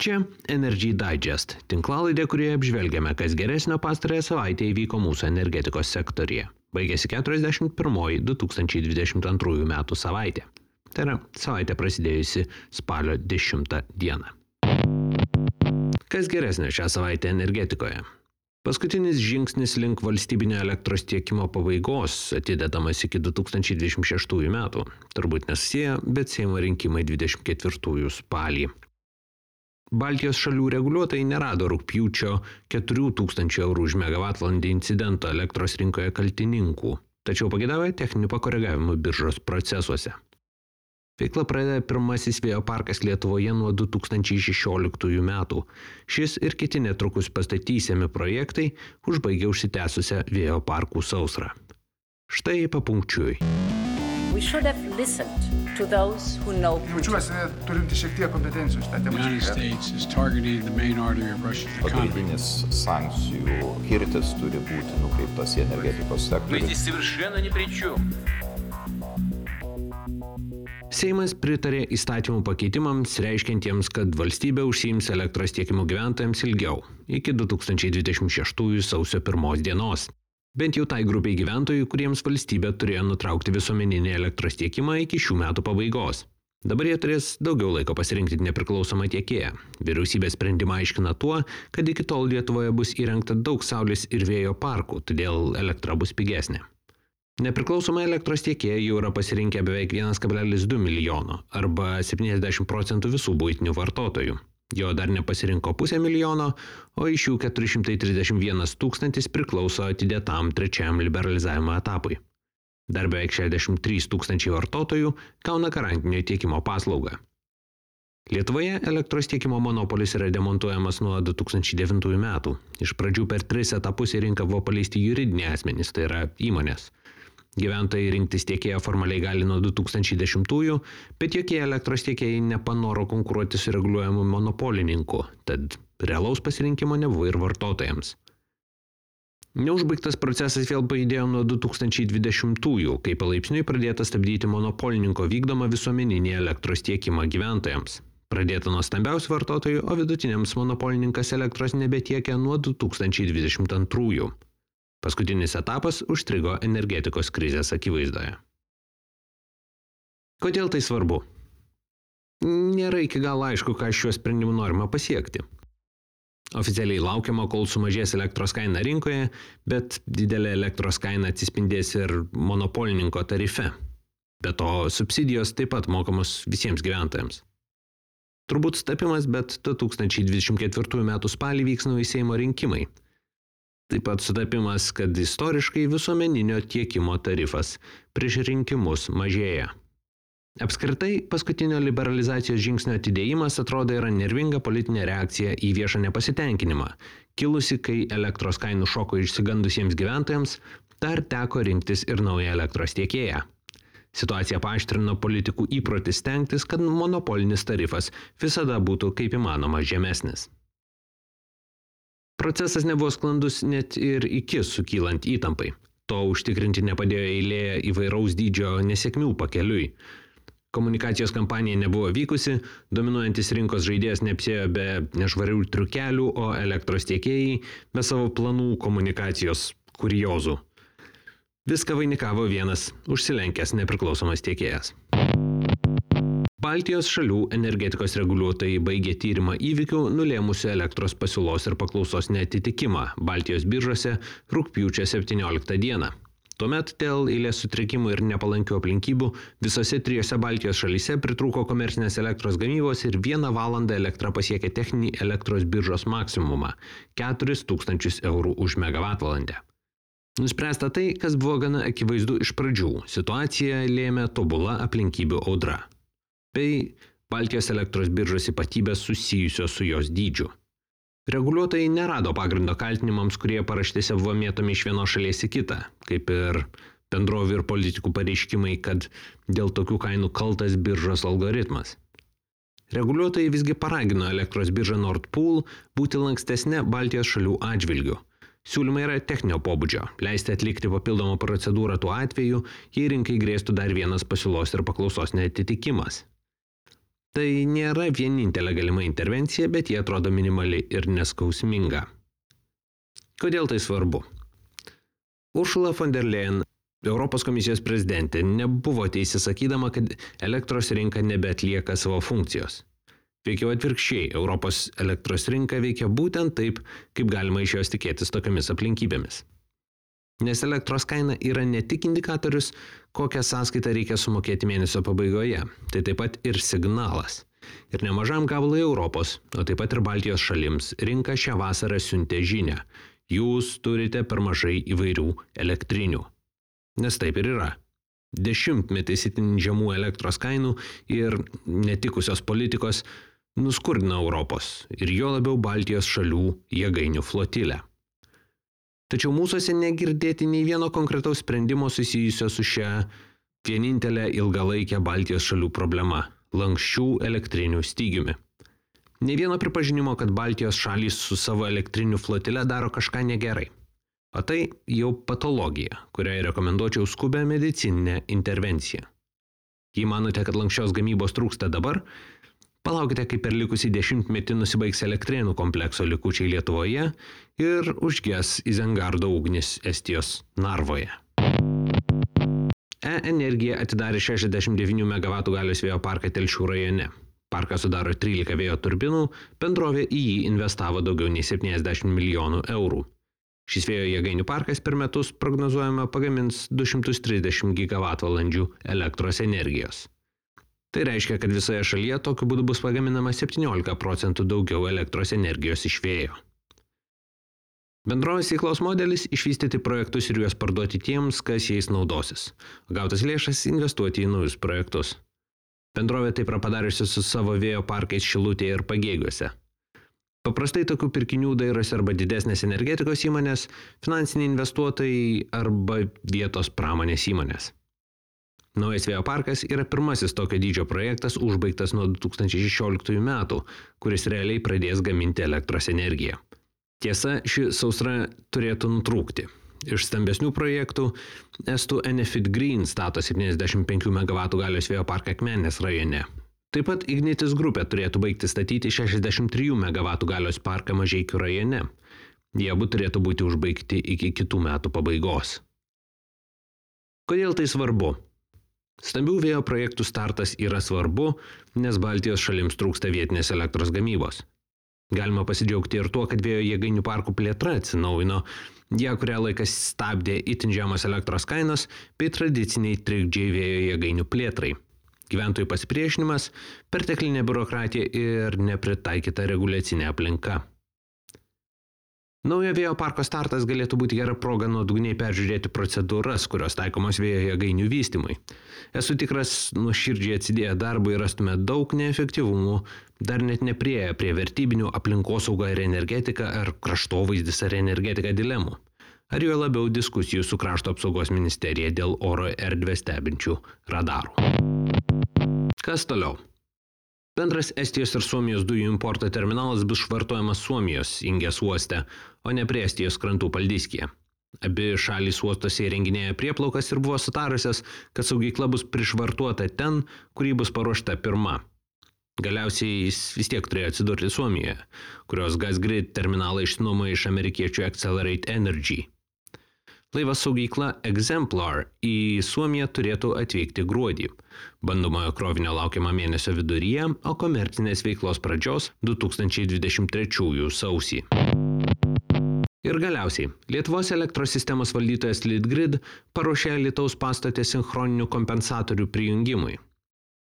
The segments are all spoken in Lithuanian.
Čia Energy Digest, tinklalaidė, kurioje apžvelgiame, kas geresnio pastarąją savaitę įvyko mūsų energetikos sektorija. Baigėsi 41 2022 metų savaitė. Tai yra savaitė prasidėjusi spalio 10 dieną. Kas geresnio šią savaitę energetikoje? Paskutinis žingsnis link valstybinio elektros tiekimo pabaigos atidedamas iki 2026 metų. Turbūt nesusiję, bet Seimo rinkimai 24 spalį. Baltijos šalių reguliuotojai nerado rugpjūčio 4000 eurų už megavatvalandę incidento elektros rinkoje kaltininkų, tačiau pageidavo techninių pakoregavimų biržos procesuose. Veiklą pradeda pirmasis vėjo parkas Lietuvoje nuo 2016 metų. Šis ir kiti netrukus pastatysiami projektai užbaigia užsitęsusią vėjo parkų sausrą. Štai papunkčiui. We should have listened to those who know Putin. Jaučiuosi turinti šiek tiek kompetencijos tą temą. United States is targeting the main artery of Russia's economy. Pagrindinis sankcijų kirtis turi būti nukreiptas į energetikos sektorių. Мы здесь совершенно ни при чем. Seimas pritarė įstatymų pakeitimams, reiškiantiems, kad valstybė užsiims elektros tiekimu gyventojams ilgiau, iki 2026 sausio 1 dienos. Bent jau tai grupiai gyventojų, kuriems valstybė turėjo nutraukti visuomeninį elektros tiekimą iki šių metų pabaigos. Dabar jie turės daugiau laiko pasirinkti nepriklausomą tiekėją. Vyriausybės sprendimą aiškina tuo, kad iki tol Lietuvoje bus įrengta daug saulės ir vėjo parkų, todėl elektra bus pigesnė. Nepriklausomą elektros tiekėją jau yra pasirinkę beveik 1,2 milijono arba 70% visų buitinių vartotojų. Jo dar nepasirinko 500 000, o iš jų 431 000 priklauso atidėtam trečiajam liberalizavimo etapui. Dar beveik 63 000 vartotojų gauna garantinio tiekimo paslaugą. Lietuvoje elektros tiekimo monopolis yra demontuojamas nuo 2009 metų. Iš pradžių per 3 etapus į rinką buvo paleisti juridiniai asmenys, tai yra įmonės. Gyventojai rinktis tiekėją formaliai gali nuo 2010-ųjų, bet jokie elektros tiekėjai nepanoro konkuruoti su reguliuojamu monopolininku, tad realaus pasirinkimo nebuvo ir vartotojams. Neužbaigtas procesas vėl pajudėjo nuo 2020-ųjų, kai palaipsniui pradėta stabdyti monopolininko vykdomą visuomeninį elektros tiekimą gyventojams. Pradėta nuo stambiausių vartotojų, o vidutiniams monopolininkas elektros nebetiekia nuo 2022-ųjų. Paskutinis etapas užstrigo energetikos krizės akivaizdoje. Kodėl tai svarbu? Nėra iki galo aišku, ką šiuo sprendimu norima pasiekti. Oficialiai laukiama, kol sumažės elektros kaina rinkoje, bet didelė elektros kaina atsispindės ir monopolininko tarife. Be to, subsidijos taip pat mokamos visiems gyventojams. Turbūt sutapimas, bet 2024 metų spalį vyks nauji Seimo rinkimai. Taip pat sutapimas, kad istoriškai visuomeninio tiekimo tarifas prieš rinkimus mažėja. Apskritai, paskutinio liberalizacijos žingsnio atidėjimas atrodo yra nervinga politinė reakcija į viešą nepasitenkinimą, kilusi, kai elektros kainų šoko išsigandusiems gyventojams dar teko rinktis ir naują elektros tiekėją. Situacija paaštrino politikų įprotį stengtis, kad monopolinis tarifas visada būtų kaip įmanoma žemesnis. Procesas nebuvo sklandus net ir iki sukylant įtampai. To užtikrinti nepadėjo eilė įvairaus dydžio nesėkmių pakeliui. Komunikacijos kampanija nebuvo vykusi, dominuojantis rinkos žaidėjas neapsėjo be nešvarių triukelių, o elektros tiekėjai be savo planų komunikacijos kuriozų. Viską vainikavo vienas užsilenkęs nepriklausomas tiekėjas. Baltijos šalių energetikos reguliuotojai baigė tyrimą įvykių nulėmusių elektros pasiūlos ir paklausos neatitikimą Baltijos biržose rugpjūčio 17 dieną. Tuomet dėl eilės sutrikimų ir nepalankių aplinkybių visose 3 Baltijos šalyse pritrūko komercinės elektros gamybos ir 1 valandą elektra pasiekė techninį elektros biržos maksimumą – 4000 eurų už megavatvalandę. Nuspręsta tai, kas buvo gana akivaizdu iš pradžių. Situaciją lėmė tobula aplinkybių audra bei Baltijos elektros biržos ypatybės susijusios su jos dydžiu. Reguliuotojai nerado pagrindo kaltinimams, kurie paraštėse buvo mėtomi iš vienos šalies į kitą, kaip ir bendrovių ir politikų pareiškimai, kad dėl tokių kainų kaltas biržos algoritmas. Reguliuotojai visgi paragino elektros biržą Nord Pool būti lankstesnė Baltijos šalių atžvilgiu. Siūlymai yra techninio pobūdžio, leisti atlikti papildomą procedūrą tuo atveju, jei rinkai grėstų dar vienas pasiūlos ir paklausos neatitikimas. Tai nėra vienintelė galima intervencija, bet jie atrodo minimali ir neskausminga. Kodėl tai svarbu? Ursula von der Leyen, Europos komisijos prezidentė, nebuvo teisi sakydama, kad elektros rinka nebeatlieka savo funkcijos. Veikiau atvirkščiai, Europos elektros rinka veikia būtent taip, kaip galima iš jos tikėtis tokiamis aplinkybėmis. Nes elektros kaina yra ne tik indikatorius, kokią sąskaitą reikia sumokėti mėnesio pabaigoje, tai taip pat ir signalas. Ir nemažam gabalui Europos, o taip pat ir Baltijos šalims, rinka šią vasarą siuntė žinią. Jūs turite per mažai įvairių elektrinių. Nes taip ir yra. Dešimtmetis itin žemų elektros kainų ir netikusios politikos nuskurdino Europos ir jo labiau Baltijos šalių jėgainių flotilę. Tačiau mūsuose negirdėti nei vieno konkretaus sprendimo susijusio su šia vienintelė ilgalaikė Baltijos šalių problema – lanksčių elektrinių stygiumi. Nei vieno pripažinimo, kad Baltijos šalys su savo elektrinių flotile daro kažką negerai. O tai jau patologija, kuriai rekomenduočiau skubę medicininę intervenciją. Jei manote, kad lanksčios gamybos trūksta dabar, palaukite, kai per likusį 10-metį nusibaigs Elektrėnų komplekso likučiai Lietuvoje ir užges Izengardo ugnis Estijos Narvoje. E-Energija atidarė 69 MW galios vėjo parką Telšių rajone. Parką sudaro 13 vėjo turbinų, bendrovė į jį investavo daugiau nei 70 milijonų eurų. Šis vėjo jėgainių parkas per metus prognozuojama pagamins 230 GWh elektros energijos. Tai reiškia, kad visoje šalyje tokiu būdu bus pagaminama 17% daugiau elektros energijos iš vėjo. Bendrovės veiklos modelis – išvystyti projektus ir juos parduoti tiems, kas jais naudosis. Gautas lėšas investuoti į naujus projektus. Bendrovė taip yra padariusi su savo vėjo parkais Šilutėje ir Pagėgiuose. Paprastai tokių pirkinių dairosi arba didesnės energetikos įmonės, finansiniai investuotojai arba vietos pramonės įmonės. Naujas vėjo parkas yra pirmasis tokio dydžio projektas užbaigtas nuo 2016 metų, kuris realiai pradės gaminti elektros energiją. Tiesa, ši sausra turėtų nutrūkti. Iš stambesnių projektų estų Enefit Green stato 75 MW galios vėjo parką Akmenės rajone. Taip pat Ignitis grupė turėtų baigti statyti 63 MW galios parką Mažeikių rajone. Jie abu turėtų būti užbaigti iki kitų metų pabaigos. Kodėl tai svarbu? Stambių vėjo projektų startas yra svarbu, nes Baltijos šalims trūksta vietinės elektros gamybos. Galima pasidžiaugti ir tuo, kad vėjo jėgainių parkų plėtra atsinaujino, ją kurią laikas stabdė itin žemos elektros kainos bei tradiciniai trikdžiai vėjo jėgainių plėtrai. Gyventojų pasipriešinimas, perteklinė biurokratija ir nepritaikyta reguliacinė aplinka. Naujo vėjo parko startas galėtų būti gera proga nuodugniai peržiūrėti procedūras, kurios taikomos vėjo jėgainių vystymui. Esu tikras, nuoširdžiai atsidėję darbui rastume daug neefektyvumų, dar net nepriėję prie vertybinių aplinkosauga ir energetika ar kraštovaizdis ar energetika dilemų. Ar jo labiau diskusijų su krašto apsaugos ministerija dėl oro erdvę stebinčių radarų. Kas toliau? Bendras Estijos ir Suomijos dujų importo terminalas bus švartuojamas Suomijos Ingės uoste, o ne prie Estijos krantų Paldiskėje. Abi šalys uostose įrenginėja prieplaukas ir buvo sutarusios, kad saugykla bus prišvartuota ten, kur ji bus paruošta pirma. Galiausiai jis vis tiek turėjo atsidurti Suomijoje, kurios Gasgrid terminalą išsinuomojo iš amerikiečių Accelerate Energy. Laivas saugykla Exemplar į Suomiją turėtų atvykti gruodį. Bandomojo krovinio laukiama mėnesio viduryje, o komercinės veiklos pradžios 2023 sausį. Ir galiausiai, Lietuvos elektros sistemos valdytojas Litgrid paruošė Alytaus pastatę sinchroninių kompensatorių prijungimui.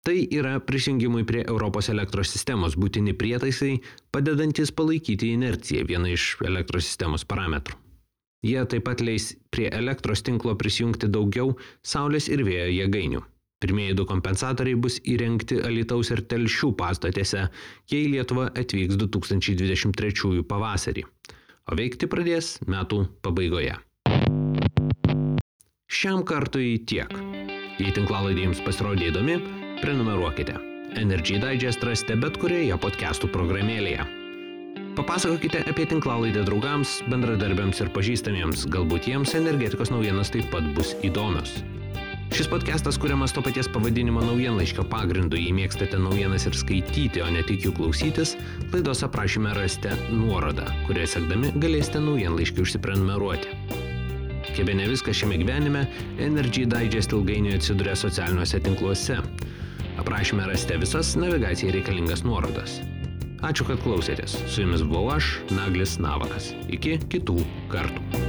Tai yra prisijungimui prie Europos elektros sistemos būtini prietaisai, padedantis palaikyti inerciją, viena iš elektros sistemos parametrų. Jie taip pat leis prie elektros tinklo prisijungti daugiau saulės ir vėjo jėgainių. Pirmieji 2 kompensatoriai bus įrengti Alytaus ir Telšių pastatėse, jei Lietuva atvyks 2023 pavasarį, o veikti pradės metų pabaigoje. Šiam kartui tiek. Jei tinklalaidė jums pasirodė įdomi, prenumeruokite. Energy Digest rasite bet kurioje podcastų programėlėje. Papasakokite apie tinklalaidę draugams, bendradarbiams ir pažįstamiems, galbūt jiems energetikos naujienos taip pat bus įdomios. Šis podcastas kuriamas to paties pavadinimo naujienlaiškio pagrindu. Jei mėgstate naujienas ir skaityti, o ne tik jų klausytis, laidos aprašyme rasite nuorodą, kurią sekdami galėsite naujienlaiškį užsiprenumeruoti. Kaip ne viskas šiame gyvenime, Energy Digest ilgainiui atsiduria socialiniuose tinkluose. Aprašyme rasite visas navigacijai reikalingas nuorodas. Ačiū, kad klausėtės. Su jumis buvau aš, Naglis Navakas. Iki kitų kartų.